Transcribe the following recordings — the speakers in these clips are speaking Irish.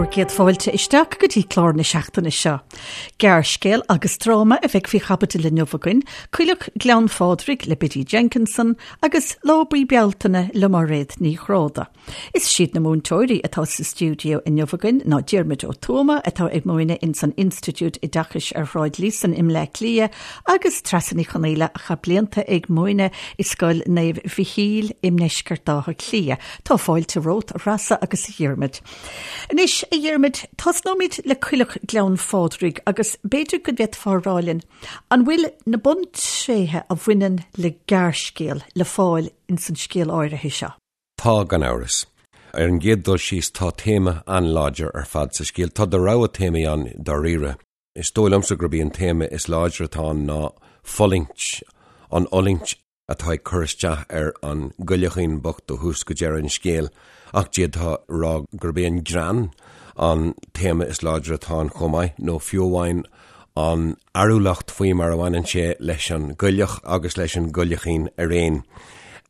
Bhur gcéad fáilte isteach go dtí clár na seachtaine seo. Gearrscéal agus dráma a bheidh faoi chaibidil inniu againn, Coileach Ghleann Phádraig le Biddy Jenkinson agus Lá Buí Bealtaine le Máiréad Ní Ghráda. Is iad na múinteoirí atá sa stiúideo inniu againn ná Diarmuid Ó Tuama atá ag múineadh ins an Institiúid Oideachais ar Shráid Líosain i mBleá Cliath agus Treasa Ní Chonaola a chaith blianta ag múineadh i Scoil Naomh Mhichíl i ndeisceart Átha Cliath. Tá fáilte romhat, a Threasa agus a Dhiarmuid. Anois, a Dhiarmuid, tosnóimid le Coileach Ghleann Phádraig agus b'fhéidir go bhféadfá a rá linn, an bhfuil na buntréithe a bhaineann le gearrscéal le fáil ins an scéal áirithe seo? Tá, gan amhras. Ar an gcéad dul síos, tá téama an-láidir ar fad sa scéal. Tá do rogha téamaí ann dáiríre. Is dóigh liomsa gurb í an téama is láidre atá ann ná fulaingt, an fhulaingt atá ag cur isteach ar an gcoileachín bocht ó thús go deireadh an scéil, ach d'fhéadfá a rá gurb é an greann an téama is láidre atá ann chomh maith, nó fiú amháin an fhearúlacht faoi mar a bhaineann sé leis an gcoileach agus leis an gcoileachín araon.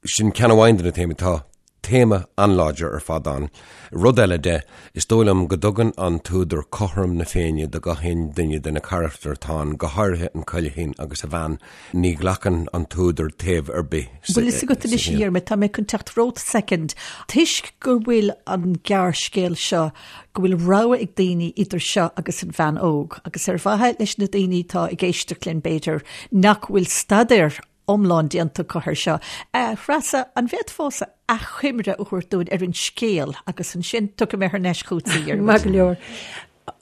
Sin ceann amháin de na téamaí. Tá téama an-láidir ar fad ann. Rud eile de, is dóigh liom go dtugann an t-údar cothrom na Féinne do gach aon duine de na carachtair atá ann, go háirithe an coileachín agus a bhean. Ní ghlacann an t-údar taobh ar bith sa scéal. Bhfuil fhios agat anois, a Dhiarmuid, tá mé chun teacht romhat soicind, toisc go bhfuil an gearrscéal seo, go bhfuil rogha ag daoine idir seo agus an bhean óg, agus ar mhaithe leis na daoine atá ag éisteacht linn, b'fhéidir, nach bhfuil staidéar iomlán déanta acu air seo. A Threasa, an bhféadfása achoimre a thabhairt dúinn ar an scéal agus ansin tiocfaidh mé thar n-ais chugat a Dhiarmuid. Maith go leor.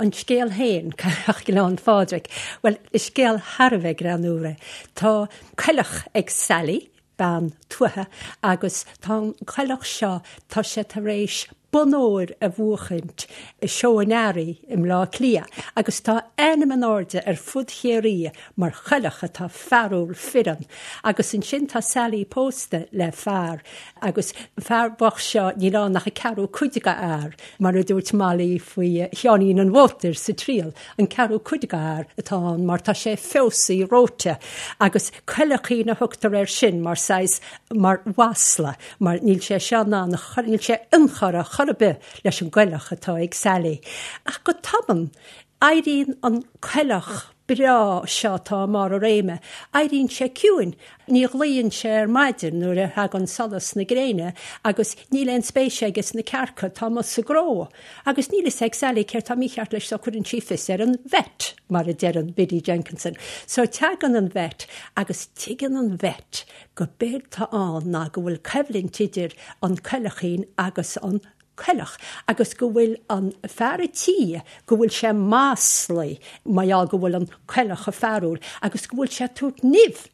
An scéal féin, Coileach Ghleann Phádraig, bhuel, is scéal thar a bheith greannúr é. Tá coileach ag Sally, bean tuaithe, agus tá an coileach seo, tá sé tar éis bonn óir a bhuachaint i Seó an Earraigh i mBleá Cliath agus tá a ainm in airde ar fud Chiarraí mar choileach atá fearúil fireann. Agus ansin tá Sally pósta le fear agus an fear bocht seo níl ann ach an ceathrú cuid de fhear, mar a dúirt Molly faoi Sheáinín an Mhótair sa Triail, an ceathrú cuid de fhear atá ann mar tá sé feosaí reoite agus coileachín a thugtar air sin mar saghas mar mhasla. mar níl sé seo in ann a chur, níl sé inchurtha chor ar bith leis an gcoileach atá ag Sally. Ach go tobann, éiríonn an coileach breá seo atá i mbarr a réime, éiríonn sé ciúin. Ní ghlaonn sé ar maidin nuair a thagann solas na gréine agus níl aon spéis aige sna cearca atá amuigh sa gcró. Agus níl fhios ag Sally céard tá mícheart leis so cuireann sí fios ar an vet, mar a deireann Biddy Jenkinson. So tagann an vet agus tuigeann an vet go b'éard tá ann ná go bhfuil coimhlint idir an coileachín agus an coileach agus go bhfuil an fear a' tí, go bhfuil sé maslaí mar gheall go bhfuil an coileach chomh fearúil agus go bhfuil sé ag tabhairt nimh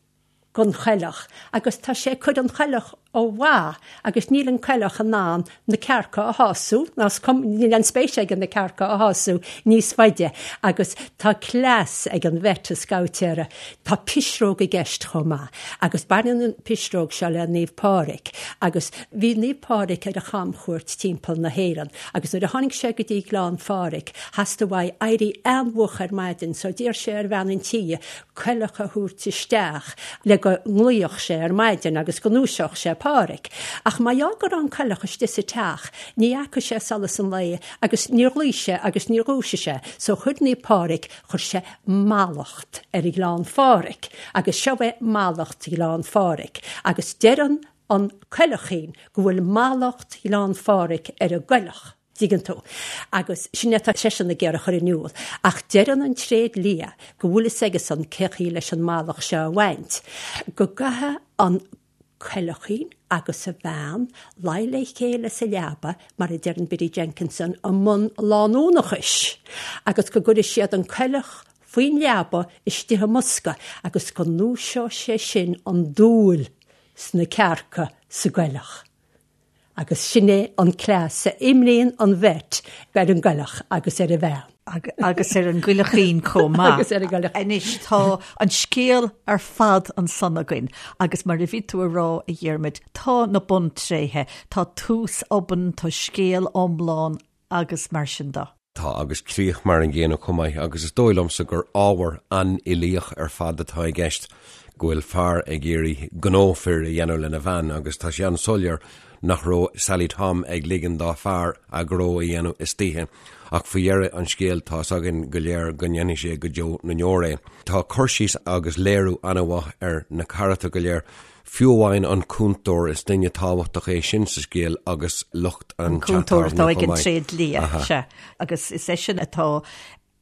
gon choileach agus tá sé ag cur an choileach ó mhaith agus níl an coileach in ann na cearca a shású, ná is cuma, níl aon spéis aige na cearca a shású níos faide agus tá cleas ag an vet, an scabhtéara. Tá pisreog i gceist chomh maith agus baineann an pisreog seo le Naomh Pádraig agus bhí Naomh Pádraig ar a chamchuairt timpeall na hÉireann agus nuair a tháinig sé go dtí Gleann Phádraig theastaigh uaidh éirí an-mhoch ar maidin so d'iarr sé ar bhean an tí coileach a thabhairt isteach le go nglaofadh sé ar maidin agus go ndúiseodh sé Pádhraic. Ach mar gheall go raibh an coileach istigh sa teach, ní fhaca sé solas an lae agus níor ghlaoigh sé agus níor dhúisigh sé. So chuir Naomh Pádhraic, chuir sé mallacht ar Ghleann Phádraig agus seo é mallacht Ghleann Phádraig agus deireann an coileachín go bhfuil mallacht Ghleann Phádraig ar an gcoileach. dtuigeann tú. Agus sin é atá seisean ag iarraidh a chur in iúl. Ach deireann an tréad liath go bhfuil fhios aigesan cén chaoi leis an mallacht seo a bhaint, go gcaithfidh an coileachín agus a bhean luí le chéile sa leaba, mar a deireann Biddy Jenkinson, i mbun lánúnachais, agus go gcuirfidh siad an coileach faoin leaba istigh i mbosca agus go ndúiseoidh sé sin an dúil sna cearca sa gcoileach. Agus sin é an cleas a imríonn an vet ar an gcoileach agus ar a bhean. Agus ar an gcoileachín chomh maith. Agus ar an gcoileach. Anois tá an scéal ar fad ansan againn agus mar a bhí tú a rá, a Dhiarmuid, tá na buntréithe, tá tús obann, tá scéal iomlán agus mar sin de. Tá, agus críoch mar an gcéanna chomh maith, agus is dóigh liomsa gur ábhar an-uilíoch ar fad atá i gceist, go bhfuil fear ag iarraidh gnó fir a dhéanamh lena bhean, agus tá sé an-soiléir. nach raibh Sally Tom ag ligean dá fear a ghnó a dhéanamh istoíche, ach faoi dheireadh an scéil tá's againn go léir go ndéanfaidh sé go deo na ndeor é. Tá cur síos agus léiriú an-mhaith ar na carachtair go léir, fiú amháin an cúntóir, is duine tábhachtach é sin sa scéal agus lucht an An cúntóir teach atá tábhairne ag chomh an maith. tréidlia, sea, agus is eisean atá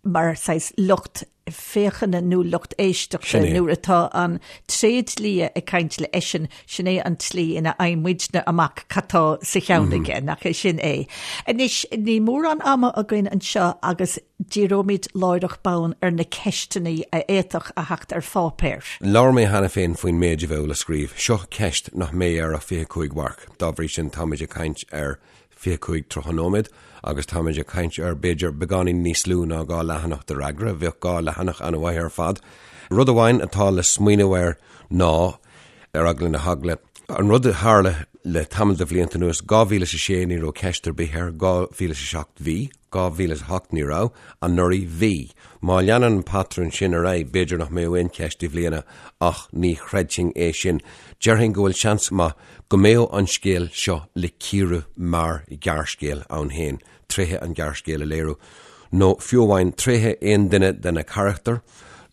mar saghas lucht féachana nó lucht éisteachta Sin é. nuair atá an tréidlia ag caint le eisean, sin é an tslí ina fhaigheann muidne amach cad tá sa cheann aige, nach é sin é. Anois, níl mórán ama againn anseo agus díreoimid láithreach bonn ar na ceisteanna a fhéadfadh a theacht ar pháipéar. Labhair mé cheana féin faoin méid a bheadh le scríobh. Seo ceist nach mbeidh air ach 25 mharc. Dá bhrí sin, táimid ag caint ar 25, 30 nóiméad agus táimid ag caint ar b'fhéidir beagáinín níos lú ná 2 leathanach de fhreagra. Bheadh 2 leathanach an-mhaith ar fad. Rud amháin atá le smaoineamh air ná, ar eagla na heagla, an rud a tharla le tamall de bhlianta anuas, 2006 ní raibh ceist ar bith air, 2007 bhí, 2008 ní raibh, anuraidh bhí. Má leanann an patrún sin ar aghaidh, b'fhéidir nach mbeadh aon cheist i mbliana ach ní chreidfinn é sin. Déarfainn go bhfuil seans maith go mbeadh an scéal seo le cíoradh mar ghearrscéal ann féin, tréithe an ghearrscéil a léiriú, nó fiú amháin tréithe aon duine de na carachtair,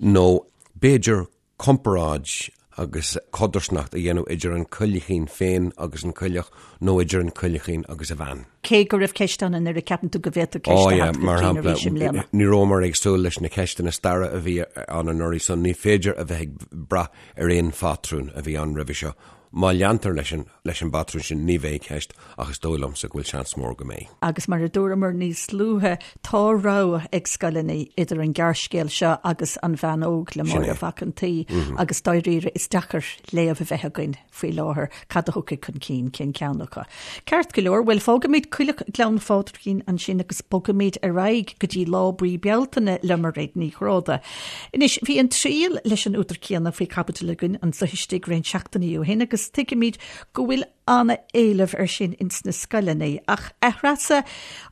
nó b'fhéidir comparáid agus codarsnacht a dhéanamh idir an coileachín féin agus an coileach, nó idir an coileachín agus a bhean. Cé go raibh ceist ann anuraidh, ceapann tú go bhféadfadh ceist a theacht chun cinn arís i mbliana? Ní rabhamar ag súil leis na ceisteanna staire a bhí ann anuraidh, so ní féidir a bheith ag brath ar aon phátrún a bhí ann roimhe seo. Má leantar leis an leis an bpatrún sin ní bheidh ceist ach is dóigh liomsa go bhfuil seans mór go mbeidh. Agus mar a dúramar níos luaithe, tá rogha ag scoileanna idir an gearrscéal seo agus An Bhean Óg le Máire Mhac an tSaoi agus dáiríre is deacair léamh a bheith againn faoi láthair cad a thiocfaidh chun cinn, cén ceann acu. Ceart go leor, bhuel fágfaimid Coileach Ghleann Phádraigín ansin agus bogfaimid ar aghaidh go dtí Lá Buí Bealtaine le Mairéad Ní Ghráda. Anois, bhí An Triail leis an údar céanna faoi chaibidil againn anseo istigh roinnt seachtainí ó shin agus tuigimid go bhfuil an-éileamh air sin ins na scoileanna. Ach, a Threasa,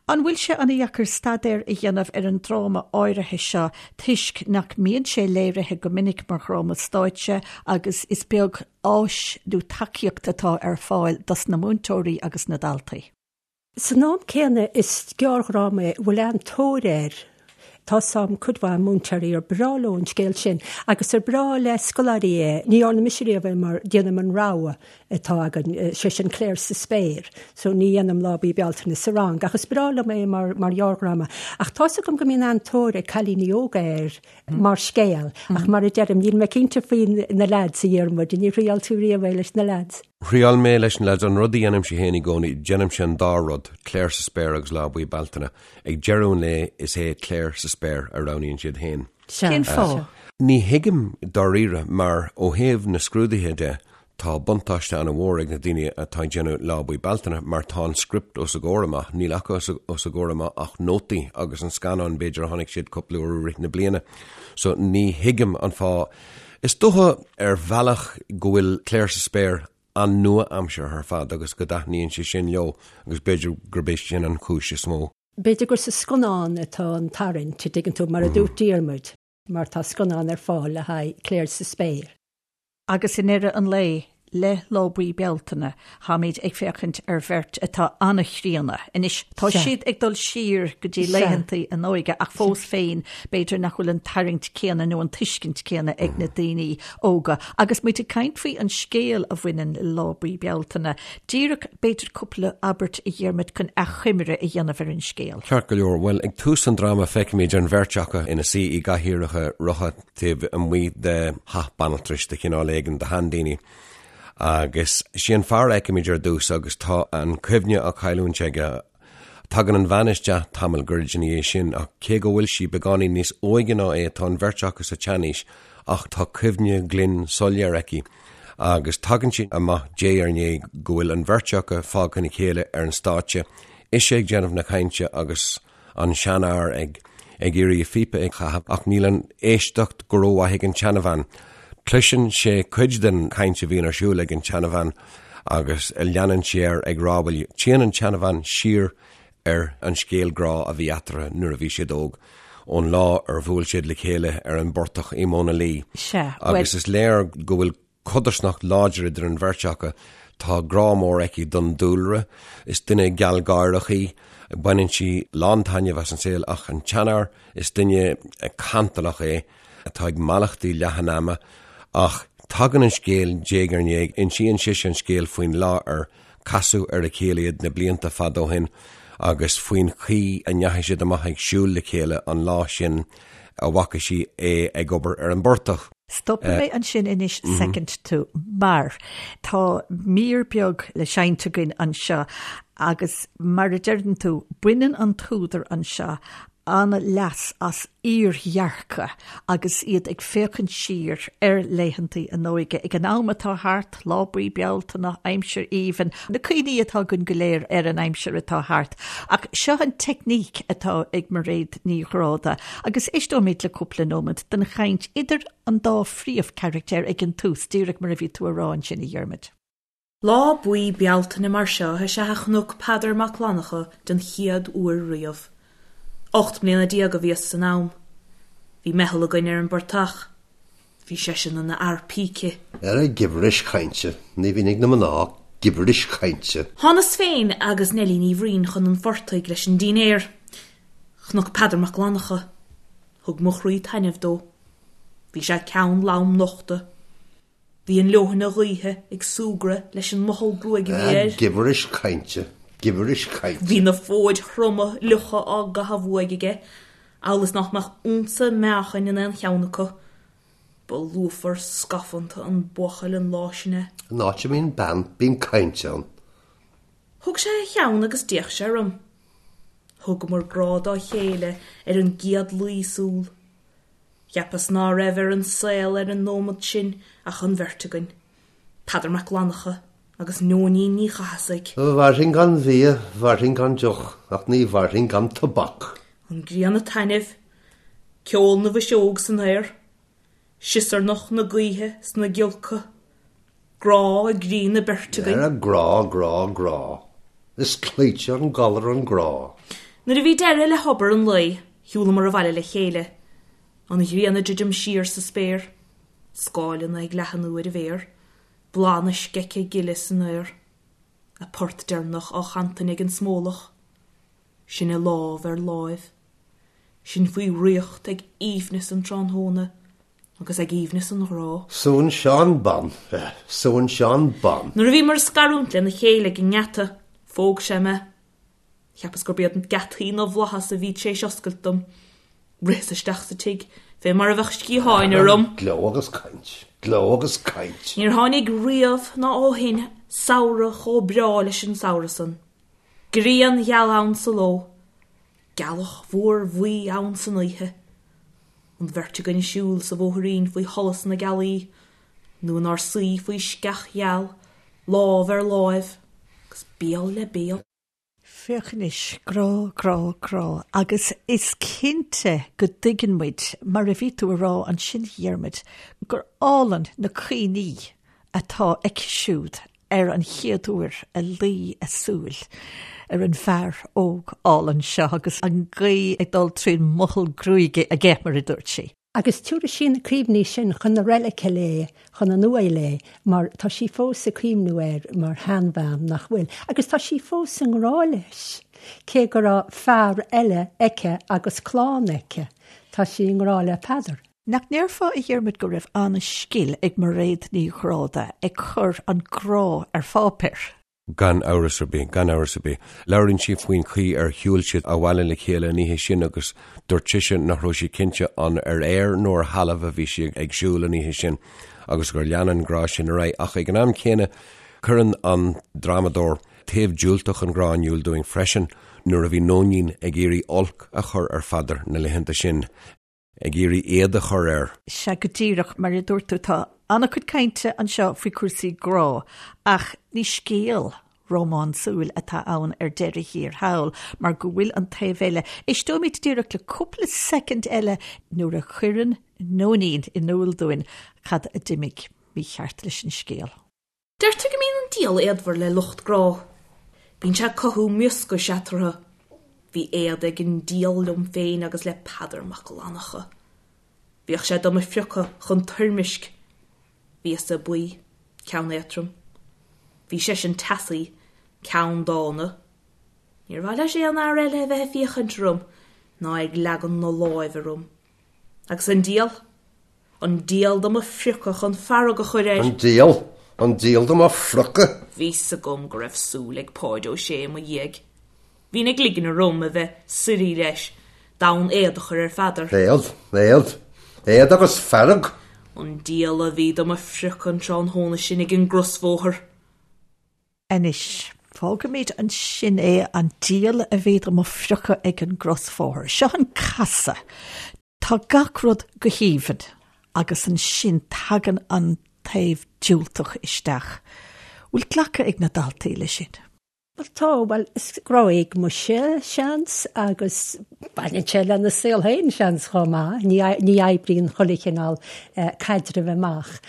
an bhfuil sé an-dheacair staidéar a dhéanamh ar an dráma áirithe seo toisc nach mbíonn sé léirithe go minic mar dhráma stáitse agus is beag áis nó tacaíocht atá ar fáil dos na múinteoirí agus na daltaí? San am céanna, is gearrdhráma é a bhfuil an-tóir air. Tá 's a'm cuid mhaith múinteoirí ar breá leo an scéal sin agus ar breá le scoláirí é. Ní dhearna mise riamh é mar déanaim an rogha atá againn, sé sin Clare sa Spéir, so ní dhéanaim Lá Buí Bealtaine sa rang ach is breá liom é mar mar ghearrdhráma. Ach tá's agam go mbíonn an-tóir ag cailíní óga air mar scéal ach mar a deirim, níl mé cinnte faoi na leaids, a Dhiarmuid, níor thriáil tú riamh é leis na leaids? Thriáil mé leis na leaids. An rud a dhéanaimse féin i gcónaí, déanaimse an dá rud, Clare sa Spéir agus Lá Buí Bealtaine. Ag deireadh an lae, is é Clare sa Spéir a roghnaíonn siad féin. Cén fáth? Ní thuigim dáiríre, mar ó thaobh na scrúduithe de, tá buntáiste an-mhór ag na daoine atá ag déanamh Lá Buí Bealtaine, mar tá an script os a gcomhair amach. Níl acu os a gcomhair amach ach nótaí agus an scannán, b'fhéidir, a chonaic siad cúpla uair i rith na bliana. So ní thuigim an fáth. Is dócha ar bhealach go bhfuil Clare sa Spéir an-nua-aimseartha ar fad agus go dtaitníonn sé sin leo agus b'fhéidir gurb é sin an chúis is mó. B'fhéidir gur sa scannán atá an tarraingt, a dtuigeann tú, mar a dúirt Diarmuid, mar tá scannán ar fáil le haghaidh Clare sa Spéir. Agus i ndeireadh an lae, le Lá Buí Bealtaine, táimid ag féachaint ar bheirt atá an-chríonna. Anois, tá siad ag dul siar go dtí laethantaí a n-óige ach fós féin, b'fhéidir nach bhfuil an tarraingt céanna nó an tuiscint céanna ag na daoine óga. Agus muid ag caint faoi an scéal a bhaineann le Lá Buí Bealtaine, díreach b'fhéidir cúpla abairt a Dhiarmuid chun achoimre a dhéanamh ar an scéal. Ceart go leor. Bhuel, ag tús an dráma feicimid an bheirt acu ina suí i gcathaoireacha rotha. taobh amuigh de theach banaltrais de chineál éigin do sheandaoine. Agus sé an fear a fheicimid ar dtús agus tá an cuimhne á cailliúint aige. Tagann an bhean isteach tamall gairid ina dhiaidh sin ach cé go bhfuil sí beagáinín níos óige ná é tá an bheirt acu sa tseanaois ach tá cuimhne ghlinn soiléir aici agus tagann sé amach diaidh ar ndiaidh go bhfuil an bheirt acu fágtha ina chéile ar an stáitse, ise ag déanamh na cainte agus an seanfhear ag ag iarraidh a phíopa a chaitheamh ach níl an éisteacht go rómhaith ag an tseanabhean. Cloiseann sé cuid den chaint a bhíonn ar siúl ag an tseanabhean agus leanann sé air ag rá bhuel téann an tseanabhean siar ar an scéal grá a bhí eatarthu nuair a bhí siad óg, ón lá ar bhuail siad le chéile ar an bportach i Móna Lí. Sea, bhuel. Agus is léir go bhfuil codarsnacht láidir idir an bheirt acu. Tá grá mór aici don dúlra. Is duine gealgháireach í. Baineann sí lán-taitneamh as an saol ach an tseanfhear, is duine cantalach é atá ag mallachtí leath an ama ach tagann an scéal diaidh ar ndiaidh, insíonn sise an scéal faoin lá ar casadh ar a chéile iad na blianta fada ó shin agus faoin chaoi a ndeachaigh siad amach ag siúl le chéile an lá sin a bhfaca sí é ag obair ar an bportach. Stopfaidh mé ansin anois soicind tú mar tá mír beag le seinnt againn anseo agus mar a deireann tú, baineann an t-údar anseo an-leas as iardhearcadh agus iad ag féachaint siar ar laethantaí a n-óige, ag an am atá thart, lá buí Bealtaine, aimsir aoibhinn, na cuimhní atá againn go léir ar an aimsir atá thart. Ach seo an teicníc atá ag Mairéad Ní Ghráda agus éisteoimid le cúpla nóiméad den chaint idir an dá phríomhcharachtar ag an tús, díreach mar a bhí tú a rá ansin, a Dhiarmuid. Lá buí Bealtaine mar seo is ea a chonac Peadar Mac Fhlannchadha den chéad uair riamh. 18 mbliana a bhíos san am. Bhí meitheal againn ar an bportach. Bhí seisean ina fhear píce. Ara gibiris chainte, ní bhíonn ag na mná ach gibiris chainte. Thánas féin agus Neilí Ní Bhraoin chun an phortaigh leis an dínnéar. Chonac Peadar Mac Fhlannchadha. Thug mo chroí taitneamh dó. Bhí sé ceann lom nochta. Bhí an leoithne ghaoithe ag súgradh leis an mothall gruaige a bhí air. Gibiris chainte, gibiris chainte. Bhí na fóid throma fhliucha á gcaitheamh uaidh aige, amhail is nach mbeadh unsa meáchain in aon cheann acu. Ba lúfar scafánta an buachaill an lá sin é. An áit a mbíonn bean, bíonn caint ann. Thug sé a cheann agus d'fhéach sé orm. Thugamar grá dá chéile ar an gcéad luí súl. Cheapas ná raibh ar an saol ar an nóimead sin ach an bheirt againn, Peadar Mac Fhlannchadha agus Nóinín Ní Chathasaigh. Mhairfinn gan bhia, mhairfinn gan deoch, ach ní mhairfinn gan tobac. An ghrian ag taitneamh, ceol na bhfuiseog san aer, siosarnach na gaoithe sna giolca, grá i gcroí na beirte againn. Ara grá, grá, grá. Is cloíte an galar an grá. Nuair a bhí deireadh le hobair an lae, shiúlamar abhaile le chéile. An ghrian ag druidim siar sa spéir, scáileanna ag leathnú ar a mhéar, bláth na sceiche gile san aer, a port deireanach á chantain ag an smólach. Sinne lámh ar láimh. Sinn faoi dhraíocht ag aoibhneas an tráthnóna agus ag aoibhneas an ghrá. Súnn Seán Bán, súnn Seán Bán. Nuair a bhíomar ag scarúint lena chéile ag an ngeata, phóg sé mé. Cheapas gurb iad geataí na bhflaitheas a bhí tar éis oscailt dom. Ritheas isteach sa tigh fé mar a bheadh sciatháin orm. Gleo agus caint, gleo agus caint. Níor tháinig riamh ná ó shin samhradh chomh breá leis an samhradh san. Grian gheal ann sa ló. Gealach mhór bhuí ann san oíche. An bheirt againn ag siúl sa bhóithrín faoi sholas na gealaí, nó inár suí faoi sceach gheal, lámh ar láimh agus béal le béal. Féach anois, grá, grá, grá, agus is cinnte go dtuigeann muid, mar a bhí tú a rá ansin, a Dhiarmuid, gur álainn na cuimhní atá aici siúd ar an chéad uair a luigh a súil ar an bhfear óg álainn seo agus an ghaoth ag dul trín mothall gruaige aige, mar a dúirt sí. Agus tabharfaidh sí na cuimhní sin chun na reilige léi, chun an uaighe léi, mar tá sí fós ag cuimhniú air mar sheanbhean, nach bhfuil? Agus tá sí fós i ngrá leis, cé go raibh fear eile aici agus clann aici, tá sí i ngrá le Peadar. Nach ndéarfá, a Dhiarmuid, go raibh an-scil ag Mairéad Ní Ghráda ag cur an grá ar pháipéar? Gan amhras ar bith, gan amhras ar bith. Labhraíonn sí faoin chaoi ar shiúil siad abhaile le chéile an oíche sin agus dúirt sise nach raibh sí cinnte an ar aer nó ar thalamh a bhí sí ag siúl an oíche sin agus gur lean an grá sin ar aghaidh. Ach ag an am céanna, cuireann an drámadóir taobh diúltach an ghrá in iúl dúinn freisin nuair a bhí Nóinín ag iarraidh olc a chur ar Pheadar na laethanta sin. ag iarraidh éad a chur air. Sea, go díreach mar a dúirt tú, tá an-chuid cainte anseo faoi chúrsaí grá, ach ní scéal rómánsúil atá ann ar deireadh thiar thall, mar go bhfuil an taobh eile. Éisteoimid díreach le cúpla soicind eile nuair a chuireann Nóinín in iúl dúinn cad a d'imigh mícheart leis an scéal. Deirtear go mbíonn an diabhal éadmhar le lucht grá. Bíonn sé ag cothú mioscais eatarthu. Bhí éad ag an diabhal liom féin agus le Peadar Mac Fhlannchadha. Bhíodh sé do mo phriocadh chun toirmisc. Bhíos-sa buí, ceann éadtrom. Bhí seisean teasaí, ceanndána. Níor mhaith leis aon fhear eile a bheith ag féachaint orm ná ag leagan na láimhe orm. Agus an diabhal? An diabhal do mo phriocadh chun fearg a chur air. An diabhal? An diabhal do mo phriocadh? Bhí 's agam go raibh súil ag Páid Ó Sé i mo dhiaidh. Bhínn ag ligean orm a bheith suirí leis, d'fhonn éad a chur ar Pheadar. Éad? Éad? Éad agus fearg? An diabhal a bhí do mo phriocadh an tráthnóna sin ag an gcrosbhóthar. Anois, fágfaimid ansin é, an diabhal a bhí do mo phriocadh ag an gcrosbhóthar. Seo an casadh. Tá gach rud go haoibhinn agus ansin tagann an taobh diúltach isteach. Bhfuil glacadh ag na daltaí leis sin? Bhuel tá, bhuel is grá éagmaise, seans, agus baineann sé lena saol féin, seans, chomh maith. Ní, ní oibríonn chuile chineál caidrimh amach.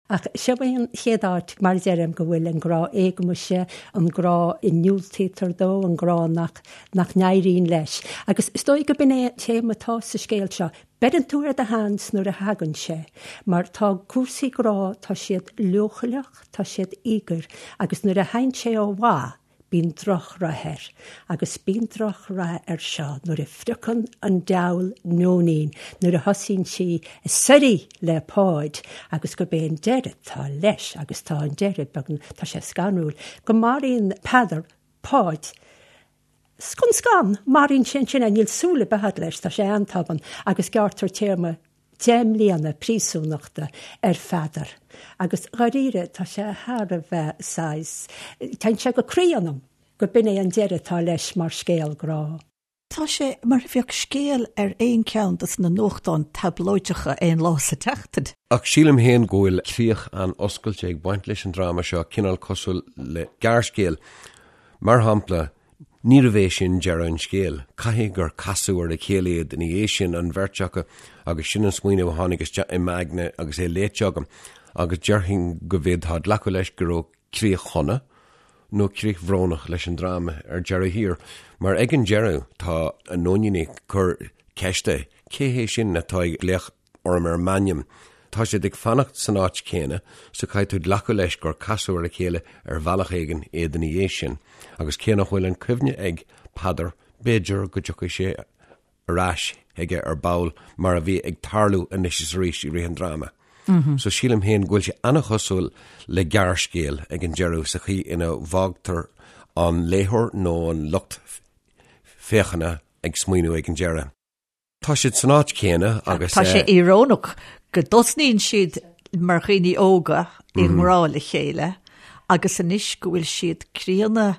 Ach seo é an chéad áit, mar a deirim, go bhfuil an grá éagmaise, an grá a ndiúltaítear dó, an grá nach, nach n-éiríonn leis. Agus is dóigh go b'in é an téama atá sa scéal seo. Beireann tú ar do sheans nuair a thagann sé, mar tá cúrsaí grá, tá siad leochaileach, tá siad íogair, agus nuair a théann sé ó mhaith, bíonn drochrath air. Agus bíonn drochrath air seo nuair a phriocann an diabhal Nóinín, nuair a thosaíonn sí ag suirí le Páid, agus gurb é an deireadh atá leis, agus tá an deireadh beagnach, tá sé scanrúil, go maraíonn Peadar Páid. Scun scan, maraíonn sé ansin é, níl súil ar bith agat leis, tá sé an-tobann, agus gearrtar téarma 10 mbliana príosúnachta ar Pheadar. Agus dháiríre, tá sé thar a bheith saghas, téann sé go croí ionam go b'in é an deireadh atá leis mar scéal grá. Tá sé mar a bheadh scéal ar aon cheann dos na nuachtáin tablóideacha aon lá sa tseachtain. Ach sílim féin go bhfuil críoch an-oscailte ag baint leis an dráma seo, cineál cosúil le gearrscéal. Mar shampla, níorbh é sin deireadh an scéil. Caithfidh gur casadh ar a chéile iad ina dhiaidh sin, an bheirt acu, agus sin an smaoineamh a tháinig isteach i m'aigne agus é léite agam. Agus déarfainn go bhféadfá glacadh leis go raibh críoch shona, nó críoch bhrónach leis an dráma ar deireadh thiar. Mar ag an deireadh tá an Nóinín ag cur ceiste, cé hé sin atá ag glaoch orm ar m'ainm. Tá siad ag fanacht san áit chéanna so caithfidh tú glacadh leis gur casadh ar a chéile ar bhealach éigin iad ina dhiaidh sin. Agus cé nach bhfuil an cuimhne ag Peadar, b'fhéidir go dtiocfaidh sé ar ais aige ar ball mar a bhí ag tarlú anois is arís i rith an dráma. So sílim féin go bhfuil sé an-chosúil le gearrscéal ag an deireadh sa chaoi ina bhfágtar an léitheoir nó an lucht féachana ag smaoineamh ag an deireadh. Tá siad san áit chéanna agus. Tá sé íorónach go dtosnaíonn siad mar dhaoine óga i ngrá le chéile agus anois go bhfuil siad críonna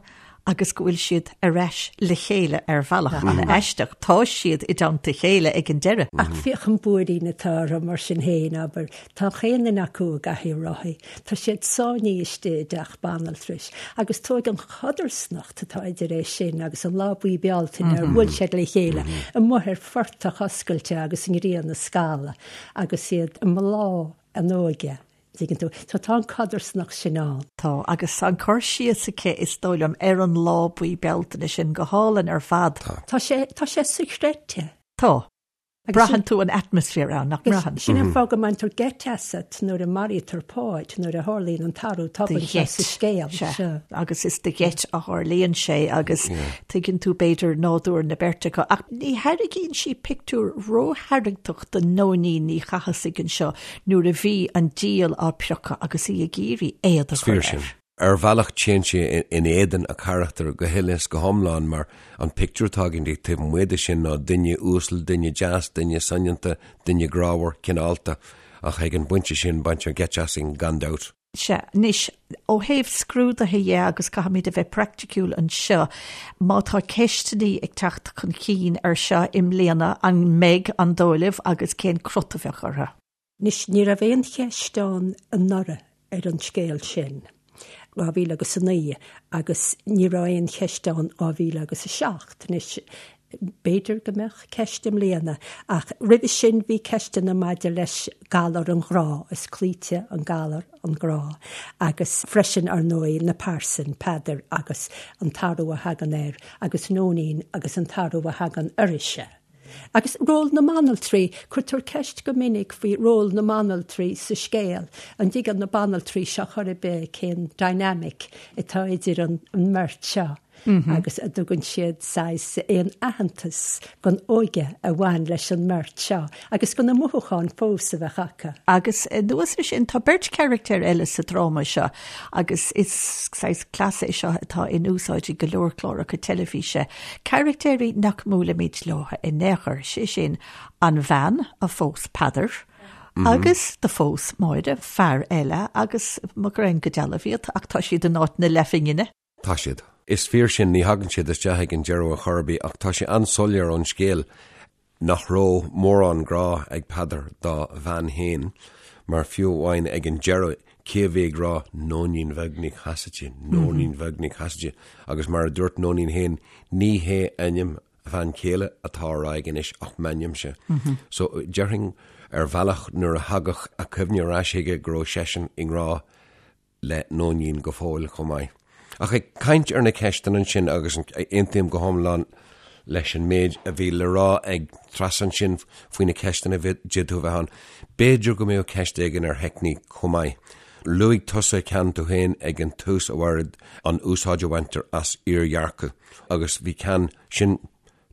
agus go bhfuil siad ar ais le chéile ar bhealach an-aisteach. Tá siad i dteannta a chéile ag an deireadh. Ach féach an buairín atá orthu mar sin féin, abair. Tá chaon duine acu i gcathaoir rothaí. Tá siad sáinnithe istigh i dteach banaltrais. Agus tóig an chodarsnacht. atá idir é sin agus an lá buí Bealtaine ar bhuail siad le chéile amuigh ar phortach oscailte agus an ghrian ag scalladh agus iad i mbláth a n-óige, dtuigeann tú. So tá an codarsnacht sin ann. Tá, agus an cur síos aici, is dóigh liom, ar an lá buí Bealtaine sin go hálainn ar fad. Tá sé, tá sé sochreidte. Tá. Braitheann tú an atmaisféar ann, nach mbraitheann? Sin an fáth go mbaintear geit asat nuair a maraítear Páid, nuair a tharlaíonn an t-athrú tobann seo sa scéal. Sea, agus is de gheit a tharlaíonn sé agus tuigeann tú b'fhéidir nádúr na beirte acu. Ach ní thairgíonn sí pictiúr rótharraingteach do Nóinín Ní Chathasaigh anseo nuair a bhí an diabhal á priocadh agus í ag iarraidh éad a chur air. Ar bhealach téann sé in éadan a carachtair go huile is go hiomlán mar an pictiúr atá againn di taobh amuigh de sin ná duine uasal, duine deas, duine soineanta, duine grámhar, cineálta. Ach ag an bpointe sin baintear geit asainn gan dabht. Sea, anois, ó thaobh scrúduithe dhe, agus caithfimid a bheith praiticiúil anseo, má tá ceisteannaí ag teacht chun cinn ar seo i mbliana, an mbeidh, an dóigh libh, agus cén crot a bheadh orthu? Anois, ní raibh aon cheist ann anuraidh ar an scéal sin, 2000 agus 9, agus ní raibh aon cheist ann 2000 agus 7. Anois, b'fhéidir go mbeadh ceist i mbliana, ach roimhe sin bhí ceisteanna maidir leis galar an ghrá, is cloíte an galar an grá, agus freisin, ar ndóigh, na pearsain, Peadar agus an t-athrú a thagann air, agus Nóinín agus an t-athrú a thagann uirthise. Agus ról na mbanaltraí, cuirtear ceist go minic faoi ról na mbanaltraí sa scéal, an dtuigeann na banaltraí seo chor ar bith cén dynamic atá idir an mbeirt seo agus an dtugann siad saghas aon aitheantas don óige a bhain leis an mbeirt seo agus do na mothúcháin fós a bheadh acu. Agus anuas air sin, tá beirt charachtar eile sa dráma seo agus is saghas cleas é seo atá in úsáid i go leor cláracha teilifíse, carachtéirí nach mbuailimid leo in aon chor, sé sin, an bhean a phós Peadar agus do phós Máire fear eile agus mo ghreidhn go dealbh iad ach tá siad in áit na leathphingine. Tá siad. Is fíor sin, ní thagann siad isteach ag an deireadh ar chor ar bith ach tá sé an-soiléir ón scéal nach raibh mórán grá ag Peadar dá bhean féin mar fiú amháin ag an deireadh cé a bhí ag rá Nóinín Bheag Nic Chasaide, Nóinín Bheag Nic Chasaide agus mar a dúirt Nóinín féin ní hé ainm a bhean chéile atá á rá aige anois ach m'ainmse. So déarfainn ar bhealach nuair a thagadh a chuimhne ar ais chuige go raibh seisean i ngrá le Nóinín go fóill chomh maith. Ach ag caint ar na ceisteanna ansin, agus aontaím go hiomlán leis an méid a bhí le rá ag Treasa ansin faoi na ceisteanna a d'fhéadfadh a bheith ann, b'fhéidir go mbeadh ceist éigin ar theicníc chomh maith. Luaigh tusa ceann tú féin ag an tús, a Mhairéad, an úsáid a bhaintear as iardhearcadh, agus bhí ceann, sin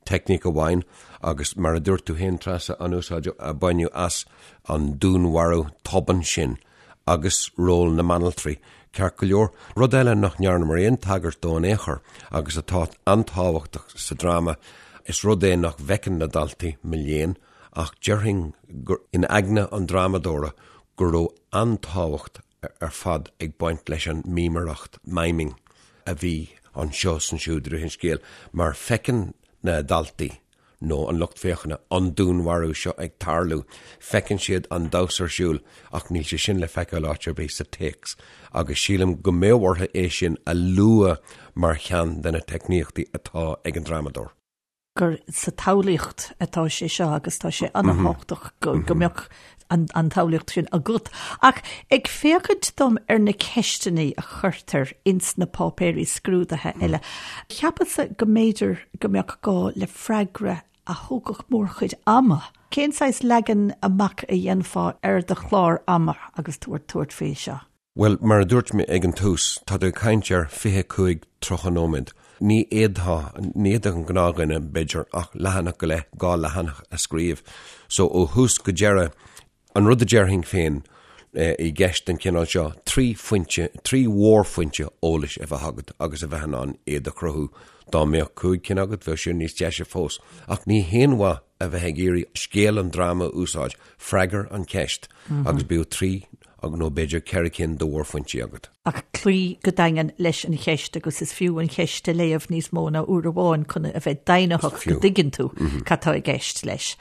teicníc amháin agus mar a dúirt tú féin Treasa, an úsáid a baineadh as an dúnmharú tobann sin agus ról na mbanaltraí. Ceart go leor, rud eile nach ndearnamar aon tagairt dó in aon chor agus atá an-tábhachtach sa dráma, is rud é nach bhfeiceann na daltaí, mo léan, ach déarfainn gur in aigne an drámadóra go raibh an-tábhacht ar fad ag baint leis an mímireacht, miming, a bhí anseo is ansiúd i rith an scéil, mar feiceann na daltaí, nó an lucht féachana, an dúnmharú seo ag tarlú, feiceann siad an damhsa ar siúl, ach níl sé sin le feiceáil áit ar bith sa téacs, agus sílim go mbeadh orthu é sin a lua mar cheann de na teicníochtaí atá ag an drámadóir. gur sa tsamhlaíocht atá sé seo agus tá sé an-tábhachtach go mbeadh an tsamhlaíocht sin agat. Ach ag féachaint dom ar na ceisteanna a chuirtear ins na páipéirí scrúdaithe eile, cheapas-sa go mb'fhéidir go mbeadh gá le freagra a thógfadh mórchuid ama. Cén saghas leagan amach a dhéanfá ar do chlár ama agus tú ag tabhairt faoi seo? Bhuel, mar a dúirt mé ag an tús, tá tú ag caint ar 25, 30 nóiméad. Ní fhéadfá, ní fhéadfadh an gnáthdhuine, b'fhéidir, ach leathanach go leith, dhá leathanach a scríobh. So, ó thús go deireadh, an rud a déarfainn féin i gceist den chineál seo, trí phointe, trí mhórphointe eolais a bheith agat agus a bheith in ann iad a chruthú. Dá mbeadh cúig cinn agat, bheadh sin níos deise fós. Ach ní haon mhaith a bheith ag iarraidh scéal an dráma a úsáid, freagair an cheist agus bíodh trí nó b'fhéidir 4 cinn de mhórphointí agat. Ach cloí go daingean leis an cheist agus is fiú an cheist a léamh níos mó ná uair amháin chun a bheith deimhnitheach go dtuigeann tú cad tá i gceist leis.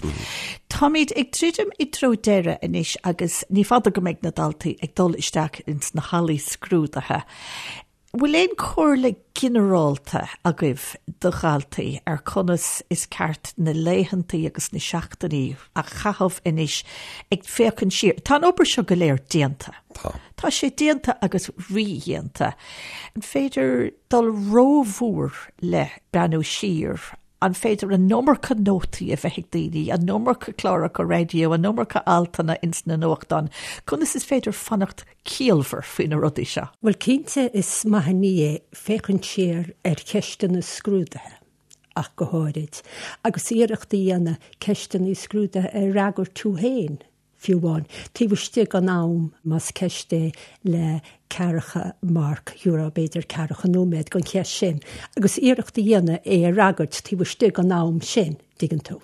Táimid ag druidim i dtreo deireadh anois agus ní fada go mbeidh na daltaí ag dul isteach ins na hallaí scrúdaithe. Bhfuil aon chomhairle ginearálta agaibh do dhaltaí ar conas is ceart na laethantaí agus na seachtainí a chaitheamh anois ag féachaint siar? Tá an obair seo go léir déanta. Tá. Tá sé déanta agus rídhéanta. An féidir dul rómhór le breathnú siar? An féidir an iomarca nótaí a bheith ag daoine, an iomarca cláracha raidió, an iomarca altanna ins na nuachtáin? Conas is féidir fanacht ciallmhar faoi na rudaí seo? Bhuel, cinnte is maith an ní é féachaint siar ar cheisteanna scrúdaithe ach go háirid, agus iarracht a dhéanamh ceisteanna scrúdaithe a fhreagairt tú féin. fiú amháin, taobh istigh den am, más ceist é le ceathracha marc, gheofá b'fhéidir ceathracha nóiméad don cheist sin, agus iarracht a dhéanamh é a fhreagairt taobh istigh den am sin, dtuigeann tú.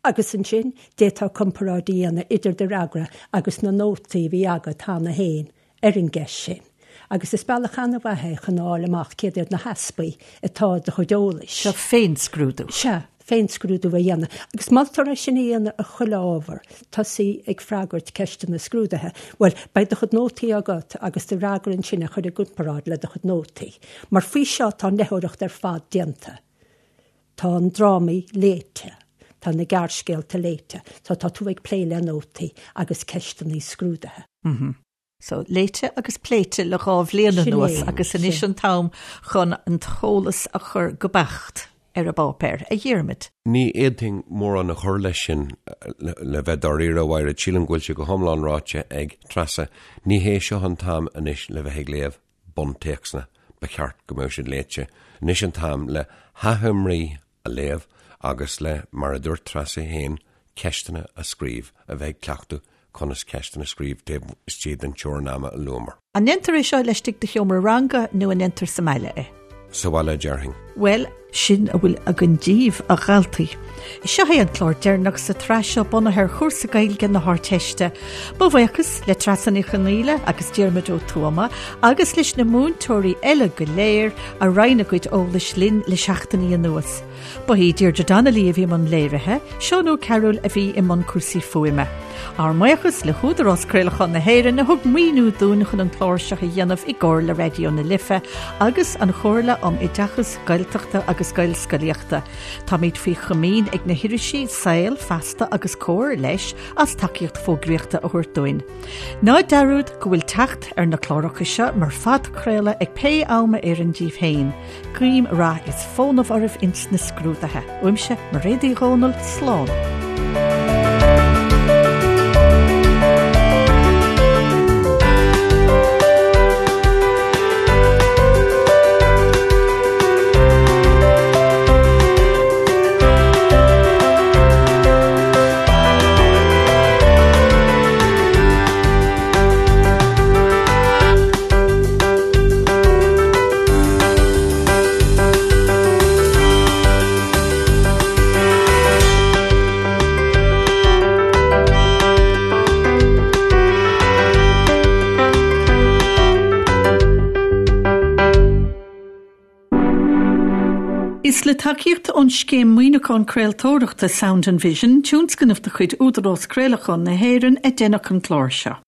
Agus ansin, d'fhéadfá comparáid a dhéanamh idir do fhreagra agus na nótaí a bhí agat cheana féin ar an gceist sin. Agus is bealach an-mhaith é chun a fháil amach céard iad na heaspaí atá i do chuid eolais. Seo féinscrúdú. Sea, féinscrúdú a dhéanamh. Agus moltar é sin a dhéanamh ar chuile ábhar, tosaí ag freagairt ceisteanna scrúdaithe. Bhuel, beidh do chuid nótaí agat agus do fhreagra ansin a chur i gcomparáid le do chuid nótaí. Mar faoi seo tá an léitheoireacht ar fad déanta. Tá an drámaí léite. Tá na gearrscéalta léite. So tá tú ag plé le nótaí agus ceisteanna scrúdaithe. So, léite agus pléite le dhá bhliain anuas agus anois an t-am chun an t-eolas a chur go beacht. ar an bpáipéar, a Dhiarmaid. Ní fhéadfainn mórán a chur leis sin, le bheith dáiríre, a Mhaighread. Sílim go bhfuil sé go hiomlán ráite ag Treasa. Ní hé seo an t-am anois le bheith ag léamh buntéacsanna, ba cheart go mbeadh siad léite. Anois an t-am le hachoimrí a léamh agus le, mar a dúirt Treasa féin, ceisteanna a scríobh, a bheith ag cleachtadh conas ceisteanna a scríobh taobh istigh den teorainn ama a luamar. An ndéantar é seo laistigh de sheomra ranga nó an ndéantar sa mbaile é? Sa bhaile, déarfainn. Bhuel, sin a bhfuil againn díbh, a dhaltaí. Seo é an clár deireanach sa tsraith seo bunaithe ar chúrsa Gaeilge na hArdteiste. Mo bhuíochas le Treasa Ní Chonghaile agus Diarmuid Ó Tuama agus leis na múinteoirí eile go léir a roinn a gcuid eolais linn le seachtainí anuas. Ba í Deirdre Donnelly a bhí i mbun léirithe, Seán Ó Cearúil a bhí i mbun cúrsaí fuaime. Ár mbuíochas le hÚdarás Craolacháin na hÉireann a thug maoiniú dúinn chun an clár seo a dhéanamh i gcomhar le Raidió na Life agus an Chomhairle um Oideachas Gaeltachta agus Gaelscolaíochta. Táimid faoi chomaoin ag na hirisí Saol, Feasta agus Comhar leis as tacaíocht fógraíochta a thabhairt dúinn. Ná dearúd go bhfuil teacht ar na cláracha seo mar phodchraoladh ag pé am a oireann díbh féin. Guím rath is fónamh oraibh ins na scrúduithe. Uaimse, Mairéad Uí Dhomhnaill, slán. Is le tacaíocht ón Scéim Maoiniúcháin Craoltóireachta Sound and Vision, tionscnamh de chuid Údarás Craolacháin na hÉireann, a deineadh an clár seo.